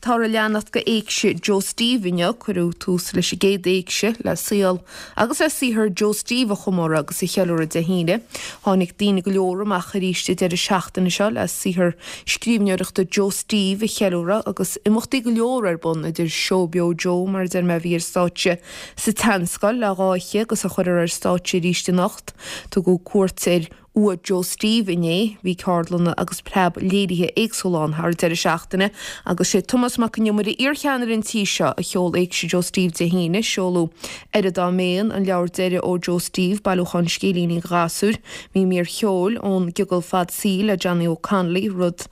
Táthar ag leanacht de Éigse Joe Steve inniu. Cuireadh tús leis an gcéad Éigse le saol agus le saothar Joe Steve a chomóradh agus a cheiliúradh Dé hAoine. Tháinig daoine go leor amach arís an deireadh seachtaine seo le saothar scríbhneoireachta Joe Steve a cheiliúradh agus imeachtaí go leor ar bun idir Seó Beo Joe mar a deir mé a bhí ar stáitse sa tSeanscoil le dá oíche agus a chuirfear ar stáitse arís anocht. Tugadh cuairt ar Uaigh Joe Steve inné. Bhí ceardlanna agus preab léirithe éagsúla ann thar an deireadh seachtaine agus sé Tomás Mac Con Iomaire, iarcheannaire an tí seo, a sheol Éigse Joe Steve Dé hAoine. Seoladh Aire Dá Mbeinn, an leabhar deiridh ó Joe Steve, bailiúchán scéilíní do ghasúir. Bhí mír cheoil ón gCiogal Fad Saoil le Johnny O'Connolly, rud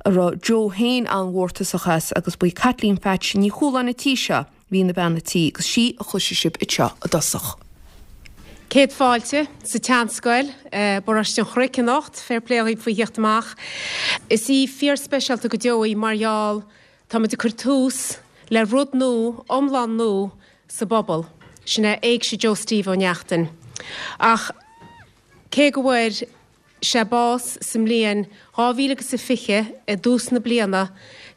a raibh Joe féin an-mhórtasach as agus ba í Caitlín Pheaits Ní Chualáin an tí seo, Bhí ina bean a tí agus sí a chloisfidh sibh anseo i dtosach. Céad fáilte sa tSeanscoil, Paróiste an Chnoic anocht. Fair play dhaoibh faoi theacht amach. Is oíche fíor-speisialta go deo í mar gheall táimid ag cur tús le rud nua, iomlán nua sa bpobal. Sin é Éigse Joe Steve Ó Neachtain. Ach cé go bhfuair sé bás sa mbliain 2000 agus a 20 i dtús na bliana,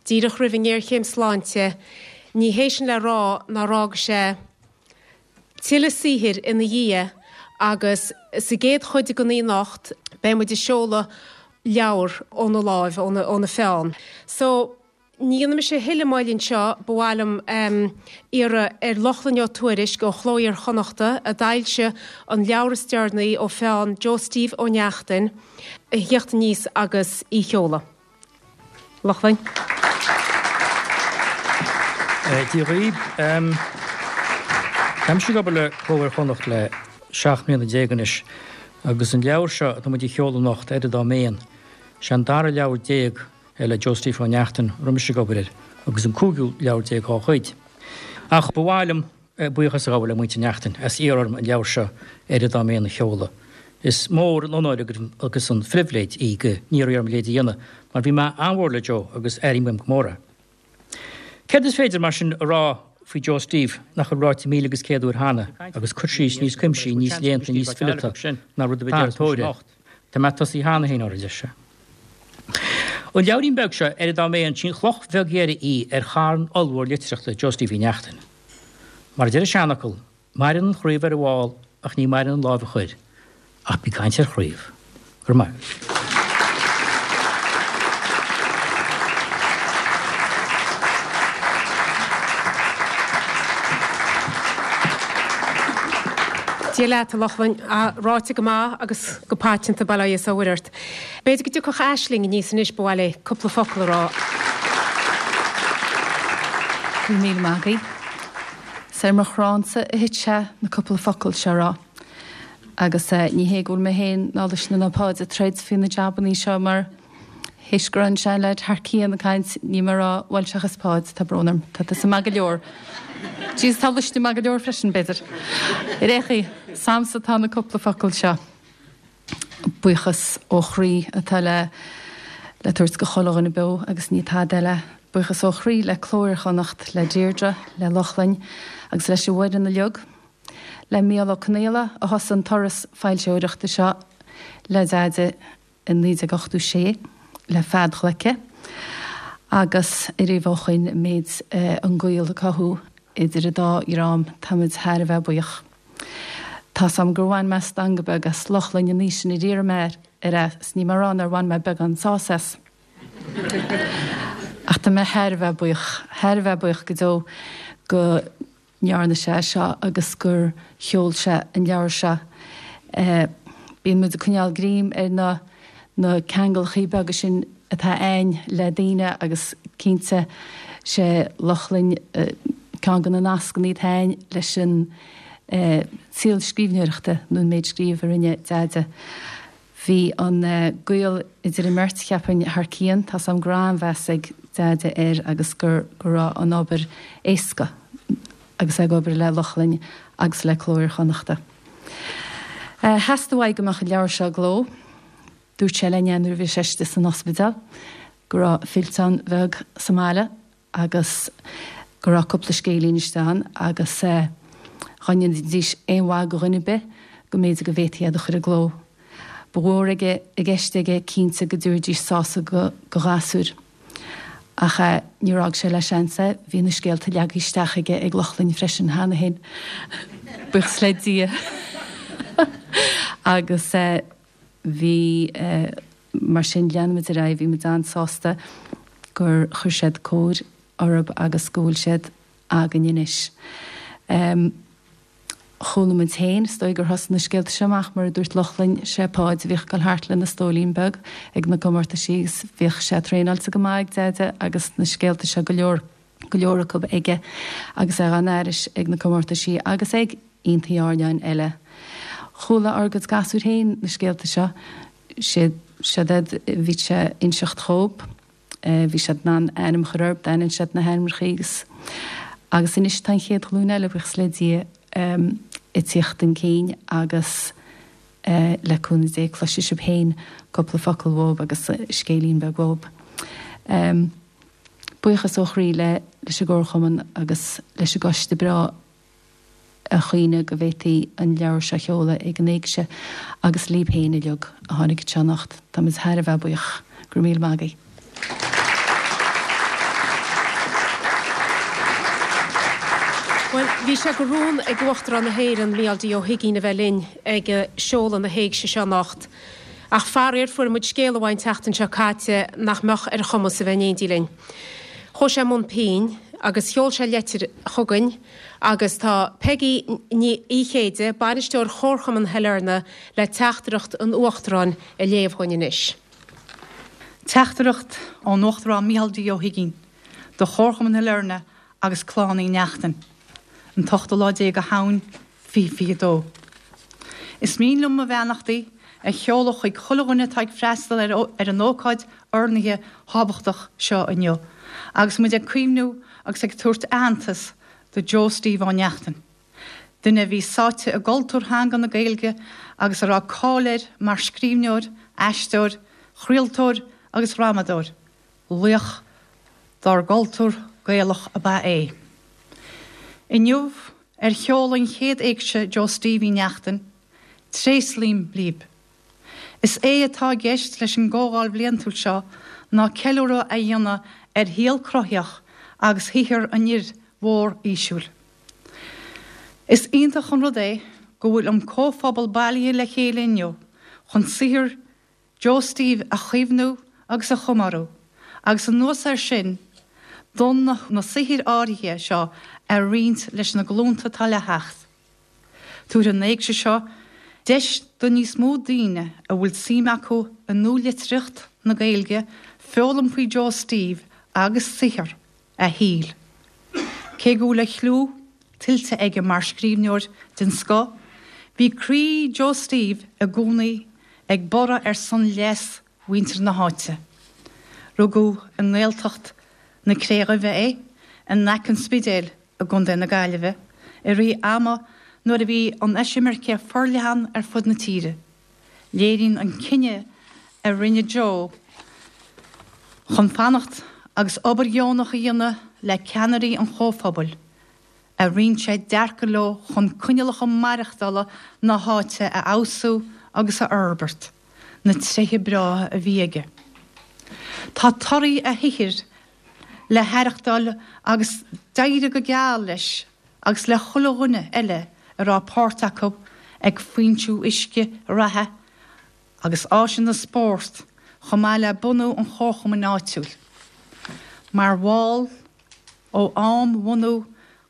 díreach roimh an ngéarchéim sláinte, ní hé sin le rá nár fhága sé tuilleadh saothair ina dhiaidh agus sa gcéad chuid den oíche anocht beidh muid ag seoladh leabhar óna láimh, óna pheann. So. Ní dhéanfaidh mise a thuilleadh moille anseo, ba mhaith liom iarraidh ar Lochlainn Ó Tuairisg ó Chló Iar-Chonnachta, a d'fhoilsigh an leabhar is deireanaí ó pheann Joe Steve Ó Neachtain, a thíocht aníos agus í a sheoladh. Lochlainn. Dia dhaoibh. Tá mise ag obair le Cló Iar-Chonnacht le 17 mbliana anois agus an leabhar seo atá muid a sheoladh anocht, Aire Dá Mbeinn, sé an dara leabhar le Joe Steve Ó Neachtain a raibh mise ag obair air, agus an cúigiú leabhar dá chuid. Ach ba mhaith liom buíochas a ghabháil le muintir Neachtain as iarraidh orm an leabhar seo, Aire Dá Mbeinn, a sheoladh. Is mór an onóir agus an phribhléid í go n-iarrfaí orm a leithéid a dhéanamh, mar bhí mé an-mhór le Joe agus airím uaim go mór é. Céard is féidir, mar sin, a rá faoi Joe Steve nach bhfuil ráite 1001 uair cheana, agus cur síos níos cuimsí, níos léannta, níos fileata ná rud ar bith a deir. Tá mé tosaithe cheana féin orthu, a deir sé. An leabhairín beag seo, Aire Dá Mbeinn, sí an chloch bheag dheiridh í ar charn ollmhór litríochta Joe Steve Uí Neachtain. Mar a deir an seanfhocal, maireann an chraobh ar an bhfál ach ní maireann an láimh a chuir. Ach bí ag caint ar chraobh. Go raibh maith agat. Dia leat, a Lochlainn. Ráite go maith agus go paiteanta, bail ó Dhia is ó Mhuire ort. B'fhéidir go dtiocfadh Aisling aníos anois, ba mhaith léi cúpla focal a rá. Go raibh míle maith agaibh. Is ar mo chránsa a thit sé na cúpla focal seo a rá. Agus ní hé go bhfuil mé féin ná Luisne ná Páid ag troid faoi na jabannaí seo mar théis go raibh an seanleaid thar cionn ag caint, níl mé ag rá, bhuel seachas Páid, tá brón orm, tá tusa maith go leor. Jeez, tá Luisne maith go leor freisin, b'fhéidir. Ar aon chaoi, is a'msa atá na cúpla focal seo. Buíochas ó chroí atá le le tabhairt go chuile dhuine beo agus ní tada eile. Buíochas ó chroí le Cló Iar-Chonnacht, le Deirdre, le Lochlainn agus leis an bhfoireann uilig. Le Mícheál Ó Conaola a thosaigh an turas foilsitheoireachta seo le Deaide i 1986 le Fead Ghleice agus ariamh ó shoin an méid an gaol a cothú idir an dá dhream táimid thar a bheith buíoch. Tá's a'm gur bhain mé stangadh beag as Lochlainn an oíche sin ar iarr mé air é 's níl mé a rá nár bhain mé beagán sásaimh as. Ach tá mé thar a bheith buíoch, thar a bheith buíoch go deo go ndearna sé é seo agus gur sheol sé an leabhar seo. Bíonn muid ag coinneáil greim ar na na ceangalachaí beaga sin atá a'ainn le daoine agus cinnte sé Lochlainn ceann de na nascannaí atá a'ainn leis an saol scríbhneoireachta nó an méid scríobh a rinne Deaide. Bhí an gaol idir an mbeirt, cheapfainn, thar cionn. Tá's a'm go raibh an-mheas ag Deaide air agus go raibh an obair éasca agus é ag obair le Lochlainn agus le Cló Iar-Chonnachta. Theastaigh uaidh go mbeadh an leabhar seo i gcló. Dúirt sé linn é nuair a bhí sé istigh san ospidéal, go raibh fillteán bheag sa mbaile agus go raibh cúpla scéilín istigh ann agus dhá ndéanfaidís aon mhaith go dhuine ar bith go mb'fhéidir go bhféadfaí iad a chur i gcló. Ba mhór aige i gceist aige cinnte go dtabharfaidís sásamh go ghasúir. Ach níor fhág sé le seans é, bhí na scéalta leagtha isteach aige ag Lochlainn freisin cheana féin, buíochas le Dia. Agus bhí, mar sin, lean muid ar aghaidh, bhí muid an-sásta gur chuir siad cóir orthu agus go bhfuil siad againn anois. Chuala muid féin, is dóigh gur thosaigh na scéalta seo amach, mar a dúirt Lochlainn, sé Páid a bhíodh ag dul thart lena stólín beag ag na comórtaisí agus bhíodh sé traenáilte go maith ag Deaide agus na scéalta seo go leor, go leor acu aige agus é dhá n-aithris ag na comórtaisí agus ag aontaí airneáin eile. Chuala ár gcuid gasúir féin na scéalta seo, siad, siad iad a bhí sé a inseacht dhób. Bhí siad in ann ainm a chur orthu, d'aithin siad na hainmneacha agus agus anois tá an chéad ghlúin eile, buíochas le Dia, ag tíocht chun cinn agus le cúnamh Dé cloisfidh sibh féin cúpla focal uathub agus scéilín beag uathub. Buíochas ó chroí le leis an gComharchumann agus leis an gcoiste breá a choinnigh go bhféadfaí an leabhar seo a sheoladh ag an Éigse agus libh féin uilig a tháinig anseo anocht. Táimid thar a bheith buíoch. Go raibh míle maith agaibh. Bhuel, bhí sé de rún ag Uachtarán na hÉireann, Mícheál D. Ó hUigínn, a bheith linn ag seoladh na hÉigse seo anocht. Ach faraor, fuair muid scéala uaidh an tseachtain seo caite nach mbeadh ar a chumas a bheith in éindí linn. Chuaigh sé i mbun pinn agus sheol sé leitir chugainn agus tá Peigí Ní Chéide, Bainisteoir Chomharchumann Shailearna, le teachtaireacht an Uachtaráin a léamh dhuinn anois. Teachtaireacht ón Uachtarán Micheál D. Ó hUigínn do Chomharchumann Shailearna agus Clann Uí Neachtain, an t-ochtú lá déag de Shamhain, 2022. Is mian liom mo bheannachtaí a sheoladh chuig chuile dhuine atá ag freastal ar an ócáid urnaithe thábhachtach seo inniu agus muid ag cuimhniú agus ag tabhairt aitheantas do Joe Steve Ó Neachtain, duine a bhí sáite i gcultúr theanga na Gaeilge agus a raibh cáil air mar scríbhneoir, aisteoir, chraoltóir agus dhrámadóir. Laoch dár gcultúr Gaelach ab ea é. Inniu, ar sheoladh an chéad Éigse Joe Steve Uí Neachtain, tréaslaím libh. Is é atá i gceist leis an gcomhdháil bhliantúil seo ná ceiliúradh a dhéanamh ar shaol cruthaitheach agus shaothar an fhir mhóir fhísiúil. Is iontach an rud é go bhfuil an comhphobal bailithe le chéile inniu chun saothar Joe Steve a chuimhniú agus a chomóradh, agus anuas air sin, d'fhonn na saothair áirithe seo a roinnt leis na glúnta atá le theacht. Tabharfaidh an Éigse seo deis do níos mó daoine a bhfuil suim acu i nualitríocht na Gaeilge foghlaim faoi Joe Steve agus saothar a shaoil. Cé go bhfuil a chliú tuillte aige mar scríbhneoir den scoth, bhí croí Joe Steve i gcónaí ag borradh ar son leas mhuintir na háite. Rugadh i nGaeltacht na Cré Dhuibhe é, in aice an Spidéil i gContae na Gaillimhe, i rith ama nuair a bhí an eisimirce forleathan ar fud na tíre. Léiríonn an cinneadh a rinne Joe chun fanacht agus obair dheonach a dhéanamh le ceannairí an chomhphobail, a roinn sé dearcadh leo chun coinníollacha maireachtála na háite a fheabhsú agus a fhorbairt, na tréithe breátha a bhí aige. Tá torthaí a shaothair le haireachtáil agus d'éirigh go geal leis agus le chuile dhuine eile a raibh páirt acu ag foinsiú uisce reatha agus áiseanna spóirt chomh maith le bunú an chomharchumainn áitiúil. Mar bhall ó am bhunú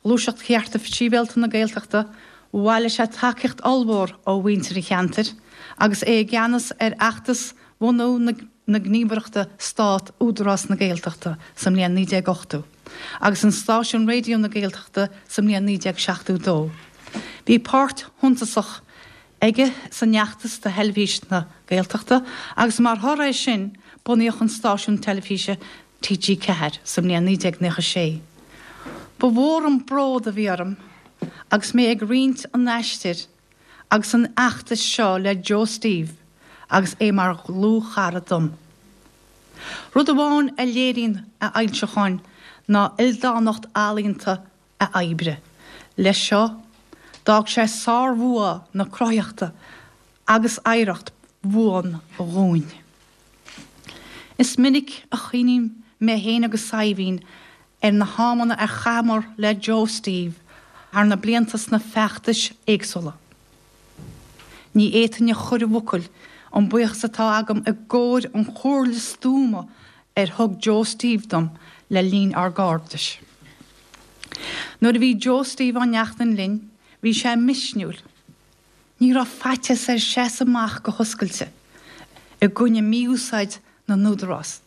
Ghluaiseacht Chearta Sibhialta na Gaeltachta, bhailigh sé tacaíocht ollmhór ó mhuintir an cheantair agus é i gceannas ar fheachtas bhunú na na gníomhaireachta Stát Údarás na Gaeltachta sa mbliain 1980 agus an stáisiún Raidió na Gaeltachta sa mbliain 1972. Bhí páirt shuntasach aige san fheachtas do Theilifís na Gaeltachta agus mar thoradh air sin bunaíodh an stáisiún teilifíse TG4 sa mbliain 1996. Ba mhór an bród a bhí orm agus mé ag roinnt an aistir agus an fheachtais seo le Joe Steve agus é mar dhlúthchara dom. Rud amháin a léiríonn a fhoilseacháin ná ildánacht ealaíonta a oibre. Leis seo, d'fhág sé sárbhua na cruthaitheachta agus oidhreacht bhuan dhúinn. Is minic a chuimhním. mé féin agus Saidhbhín ar na hamanna a chaitheamar le Joe Steve thar na blianta sna feachtais éagsúla. Ní fhéadfainn a chur i bhfocail an buíochas atá agam i gcomhair an chomhairle stuama ar thug Joe Steve dom le linn ár gcairdis. Nuair a bhí Joe Steve Ó Neachtain linn, bhí sé misniúil. Ní raibh faitíos air seasamh amach go hoscailte i gcoinne mí-úsáid na n-údarás.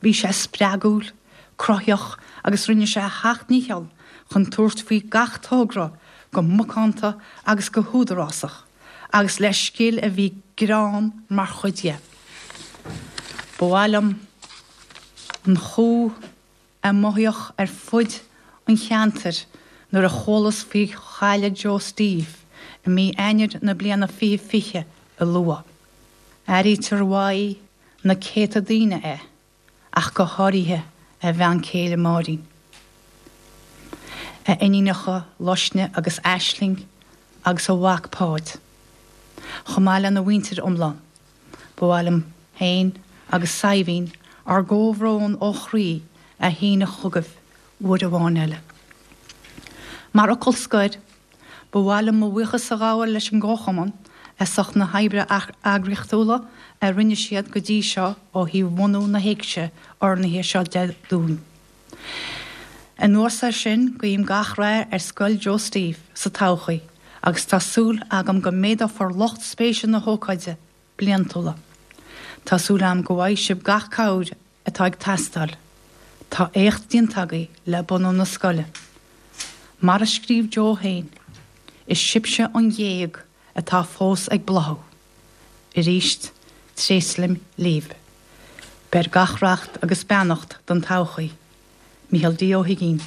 Bhí sé spreagúil, cruthaíoch agus rinne sé a sheacht ndícheall chun tabhairt faoi gach togra go macánta agus go húdarásach agus le scil a bhí greann mar chuid dhe. Ba mhaith liom an chumha a mothaíodh ar fud an cheantair nuair a chualas faoi chailleadh Joe Steve i mí Eanáir na bliana 2020 a lua. Airítear uaidh na céadta daoine é, ach go háirithe a bhean céile Máirín, a iníonacha Luisne agus Aisling agus a mhac Páid, chomh maith lena mhuintir iomlán. Ba mhaith liom féin agus Saidhbhín ár gcomhbhrón ó chroí a shíneadh chugaibh uair amháin eile. Mar fhocal scoir, Ba mhaith liom mo bhuíochas a ghabháil leis an gComharchumann as ucht na hoibre eagraíochtúla a rinne siad go dtí seo ó thaobh bhunú na hÉigse urnaithe seo de dúinn. Anuas air sin, guím gach rath ar Scoil Joe Steve sa todhchaí agus tá súil agam go méadófar lucht spéise na hócáide bliantúla. Tá súil agam go bhfaighidh sibh gach cabhair atá ag teastáil. Tá éacht déanta agaibh le bunú na scoile. Mar a scríobh Joe féin, is sibhse an ghéag atá fós ag bláthú. Arís, tréaslaím libh. Beir gach racht agus beannacht don todhchaí. Micheál D. Ó hUigínn.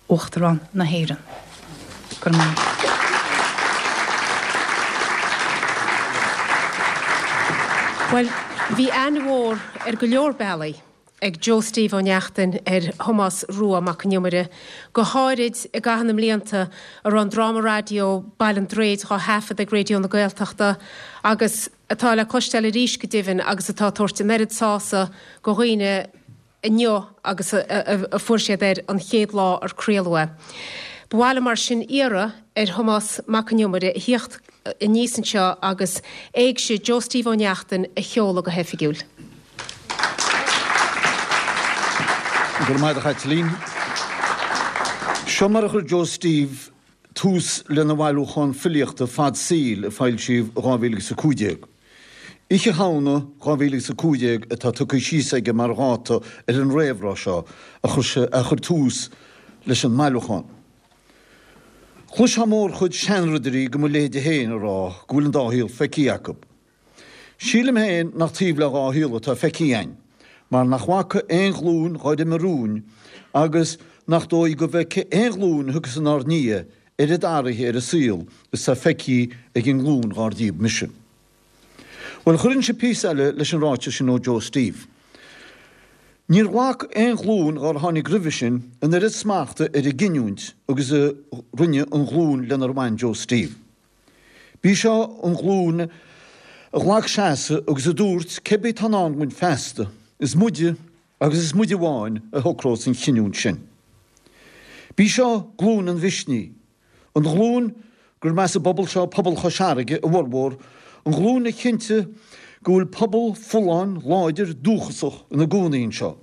Uachtarán na hÉireann. Go raibh maith. Bhuel, bhí aithne mhór ar go leor bealaí ag Joe Steve Ó Neachtain ar Thomás Rua Mac an Iomaire, go háirid i gcaitheamh na mblianta a raibh an dráma raidió Baile an Duraeid dhá thaifead ag Raidió na Gaeltachta agus atá le cloisteáil arís go deimhin agus atá ag tabhairt an oiread sása go dhaoine inniu agus a fuair siad air an chéad lá ar craoladh é. Ba mhaith liom mar sin iarraidh ar Thomás Mac an Iomaire a thíocht aníos anseo agus Éigse Joe Steve Ó Neachtain a sheoladh go hoifigiúil. Go raibh maith agat a Chaitlín. Seo mar a chuir Joe Steve tús lena bhailiúchán filíochta Fad Saoil a foilsíodh i 2015. Oíche Shamhna 2015 atá tugtha síos aige mar dháta ar an réamhrá seo a chuir sé a chuir tús leis an mbailiúchán. Chloisfeá mórchuid seanridirí de mo leithéide féin ag rá go bhfuil an dá shaol feicthe acu. Sílim féin nach taobh le dhá shaol atá feicthe againn, mar nach bhfaca aon ghlúin dhár imigh romhainn agus nach dóigh go bhfeicfidh aon ghlúin a thiocfas inár ndiaidh oiread athraithe ar an saol is tá feicthe ag an nglúin dhár díobh mise. Bhuel, chuirfinnse píosa eile leis an ráiteas sin ó Joe Steve. Níor ghlac aon ghlúin dhár tháinig roimhe sin an oiread smachta ar a gcinniúint agus a rinne an ghlúin lenar bhain Joe Steve. B'í seo an ghlúin a ghlac seasamh agus a dúirt cébí atá i ndán dúinn feasta, is muide agus is muide amháin a shocrós an chinniúint sin. B'í seo glúin an mhisnigh, an ghlúin gur as an bpobal seo, pobal Chois Fharraige, a bhformhór, an ghlúin a chinntigh go bhfuil pobal folláin, láidir, dúchasach ina gcónaí anseo.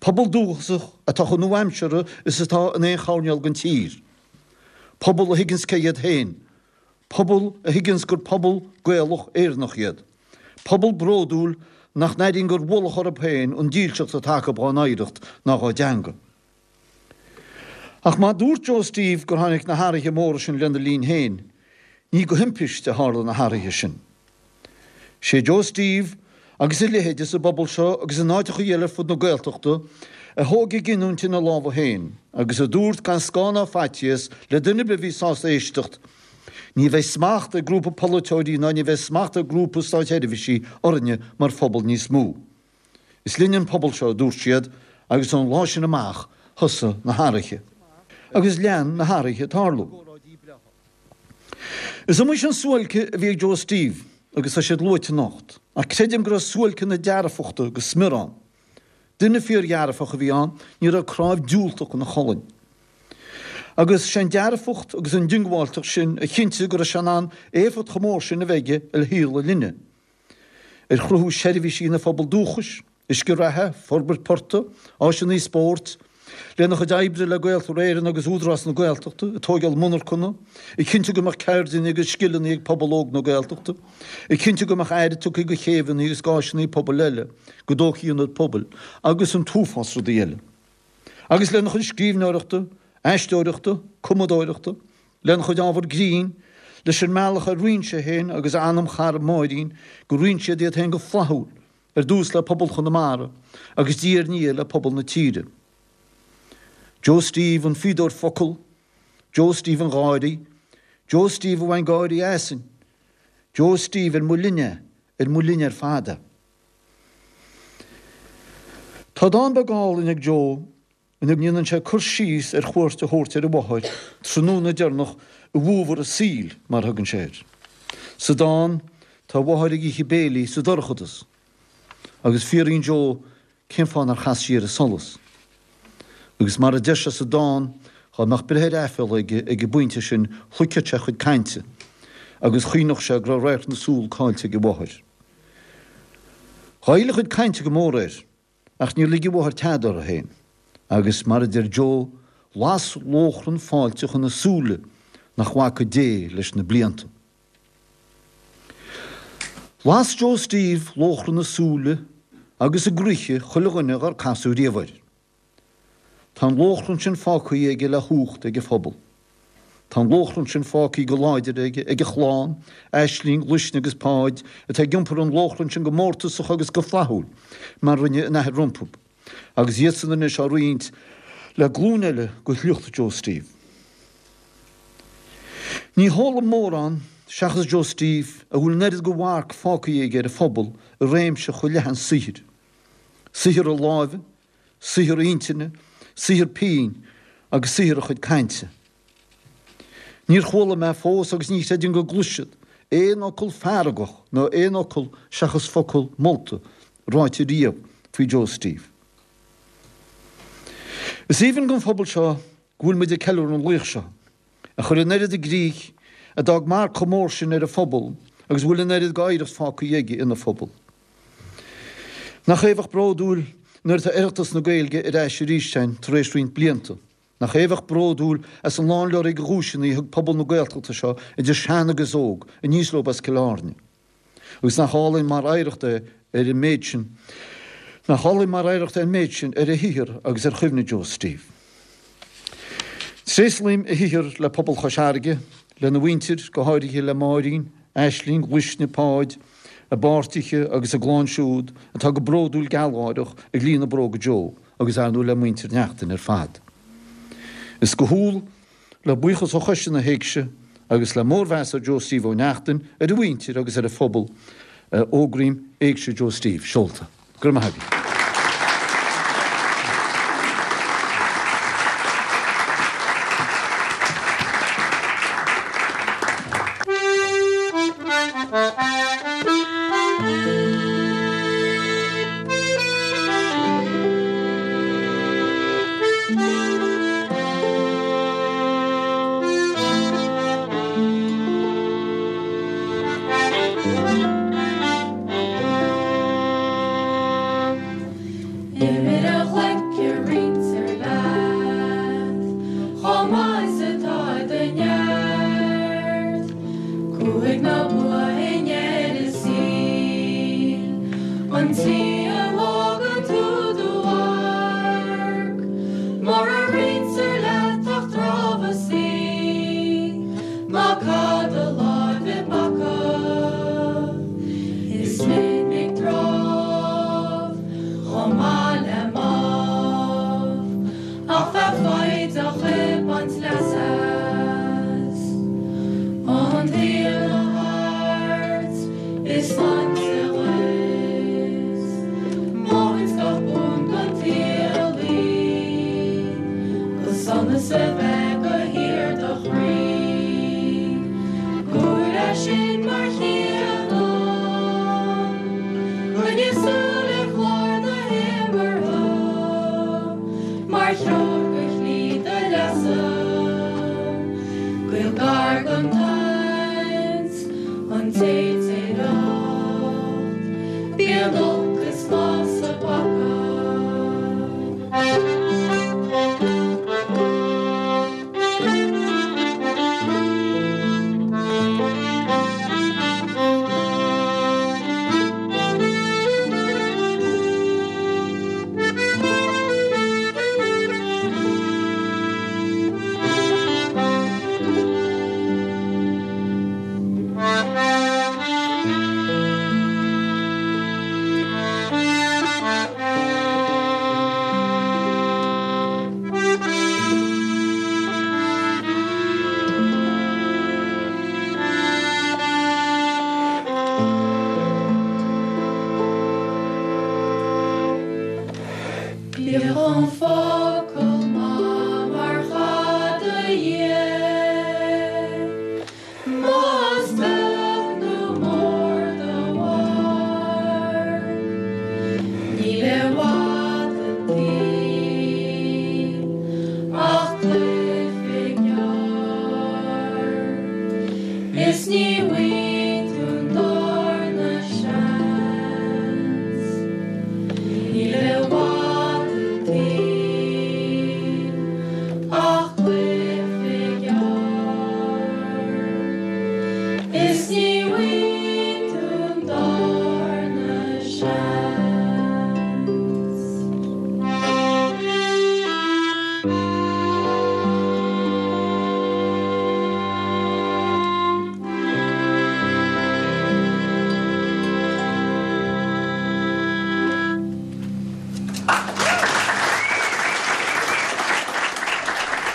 Pobal dúchasach atá chomh nua-aimseartha is atá in aon choirnéal den tír. Pobal a thuigeanns cé hiad féin. Pobal a thuigeanns gur pobal Gaelach Éireannach iad. Pobal bródúil nach n-airíonn gur ualach orthu féin an dílseacht atá acu dhá n-oidhreacht ná dhá dteanga. Ach má dúirt Joe Steve gur tháinig na hathruithe móra sin lena linn féin, ní de thimpiste a tharla na hathruithe sin. Sé Joe Steve agus a leithéide sa bpobal seo agus in áiteacha eile ar fud na Gaeltachta a thóg a gcinniúint ina lámha féin agus a dúirt gan scáth ná faitíos le duine ar bith a bhí sásta éisteacht, Ní bheidh smacht ag grúpa polaiteoirí ná ní bheidh smacht ag grúpa stáitsheirbhísigh orainne mar phobal níos mó. Is linne an pobal seo, a dúirt siad, agus ón lá sin amach thosaigh na hathruithe. Agus lean na hathruithe ag tarlú. Is iomaí sin suáilce a bhí ag Joe Steve agus tá siad luaite anocht, ach creidim go raibh suáilce na dearfachta go smior ann. Duine fíordhearfach a bhí ann, ní raibh cnámh diúltach ina cholainn. Agus sé an dearfacht agus an diongbháilteacht sin a chinntigh go raibh sé in ann éifeacht chomh mór sin a bheith aige ar shaol a linne, ar chruthú seirbhísí ina phobal dúchais, uisce reatha, forbairt portaigh, áiseanna spóirt, lena chuid oibre le Gaeltarra Éireann agus Údarás na Gaeltachta, ag tóigeáil monarchana, ag cinntiú go mbeadh ceirdeanna agus scileanna ag pobal óg na Gaeltachta, ag cinntiú go mbeadh aire tugtha do chéibheanna agus d'áiseanna pobail eile, go dtógfaí ionaid pobail, agus an t-uafás rudaí eile. Agus lena chuid scríbhneoireachta, aisteoireachta, cumadóireachta, lena chuid ábhar grinn, leis an mbealach ar roinn sé féin agus a anamchara Máirín, gur roinn siad iad féin go flaithiúil, ar dtús le pobal Chonamara agus diaidh ar ndiaidh le pobal na tíre. Joe Steve an fíodóir focal, Joe Steve an gháirí, Joe Steve a bhain gáirí asainn, Joe Steve ar mo linne é, ar mo linne ar fad é. Tá dán beag álainn ag Joe ina ndéanann sé cur síos ar chuairt a thabhairt ar a mháthair tráthnóna deireanach i bhfómhar a saoil, mar a thugann sé air. Sa dán, tá a mháthair ag ithe béilí sa dorchadas, agus fiafraíonn Joe cén fáth nár chas sí ar an solas. Agus mar a deir sé sa dán, dhá mbeadh breith ar aiféala aige ag an bpointe sin, shloigfeadh sé a chuid cainte, agus chuimhneodh sé go raibh radharc na súl caillte ag a mháthair. Ghoill a chuid cainte go mór air. Ach níor lig a mháthair tada uirthi féin, agus mar a deir Joe, las lóchrann fáilteach ina súile nach bhfaca Dé leis na blianta. Las Joe Steve lóchrann i súile agus i gcroíthe chuile dhuine dhár casadh riamh air. Tá an lóchrann sin fágtha aige le hucht ag a phobal. Tá an lóchrann sin fágtha go láidir aige ag a chlann, Aisling, Luisne agus Páid, atá ag iompar an lóchrainn sin go mórtasach agus go flaithiúil, mar rinne a n-athair rompu, agus iadsan anois á roinnt le glúin eile de shliocht Joe Steve. Ní heol dom mórán, seachas Joe Steve, a bhfuil an oiread de mharc fágtha aige ar a phobal i réimse chomh leathan saothair. Saothar a láimhe, saothar intinne, saothar pinn agus saothar a chuid cainte. Níor chuala mé fós agus ní chreidim go gcloisfead aon fhocal feargach nó aon fhocal seachas focal molta ráite riamh faoi Joe Steve. Is aoibhinn don phobal seo go bhfuil muid ag ceiliúradh an laoich seo, a chuir an oiread i gcrích, a d'fhág marc chomh mór sin ar a phobal agus a bhfuil an oiread d'oidhreacht fágtha aige ina phobal. Nach é a bheadh bródúil nuair atá Oireachtas na Gaeilge ar ais arís againn tar éis roinnt blianta? Nach é a bheadh bródúil as an lánleoraí de dhuaiseanna a thug pobal na Gaeltachta seo, idir shean agus óg, aníos leo as Cill Airne? Agus nach álainn mar oidhreacht é ar an méid sin, nach álainn mar oidhreacht é an méid sin ar a shaothar agus ar chuimhne Joe Steve? Tréaslaím a shaothar le pobal Chois Fharraige, lena mhuintir, go háirithe le Máirín, Aisling, Luisne, Páid, a bpáirtithe agus a gclann siúd atá go bródúil gealgháireach ag líonadh bróga Joe agus ar ndóigh le muintir Neachtain ar fad. Is go humhal, le buíochas ó Choiste na hÉigse agus le mórmheas ar Joe Steve Ó Neachtain, ar a mhuintir agus ar a phobal, a fhógraím Éigse Joe Steve seolta. Go raibh maith agaibh. Imir a ghleice roinntear leat chomh maith is atá i do neart. Cumhaidh ná bua i ndeireadh saoil an tslí a bhfágann tú do mharc. Mura roinntear leat ach drámhasaí ná cad a láimh i bpaca. Is minic drámh chomh maith le mámh, ach bheith foighdeach ag baint leas as. An tsaol a thart is sláinte dhuit, maíonn gach bun don tsaol í, go sonas a bheith go híor do chroí. Gur é sin mar chéanna, coinnigh súil ar chlár na himeartha.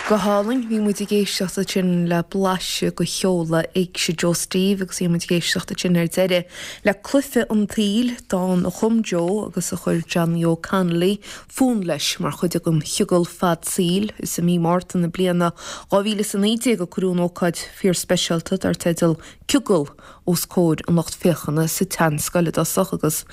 Go hálainn. Bhí muid ag éisteacht ansin le blaiseadh de sheoladh Éigse Joe Steve agus bhí muid ag éisteacht ansin ar deireadh le Cluiche an tSaoil, dán a chum Joe agus a chuir Johnny Óg Connolly fonn leis mar chuid den chiogal fad saoil. Is i mí Márta na bliana 2019 a cuireadh an ócáid fíorspeisialta dar teideal Ciogal os comhair an lucht féachana sa tSeanscoil i dtosach agus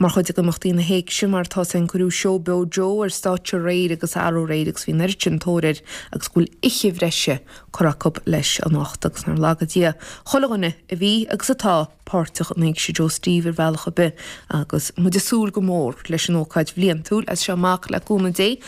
mar chuid d'imeachtaí na hÉigse mar atá féin cuireadh seó beo Joe ar stáitse aréir agus arú aréir agus bhí an oiread sin tóir air agus go bhfuil oíche bhreise curtha acu leis anocht agus nár laga Dia chuile dhuine a bhí agus atá páirteach in Éigse Joe Steve ar bhealach ar bith agus muid ag súil go mór leis an ócáid bhliantúil as seo amach le cúnamh Dé.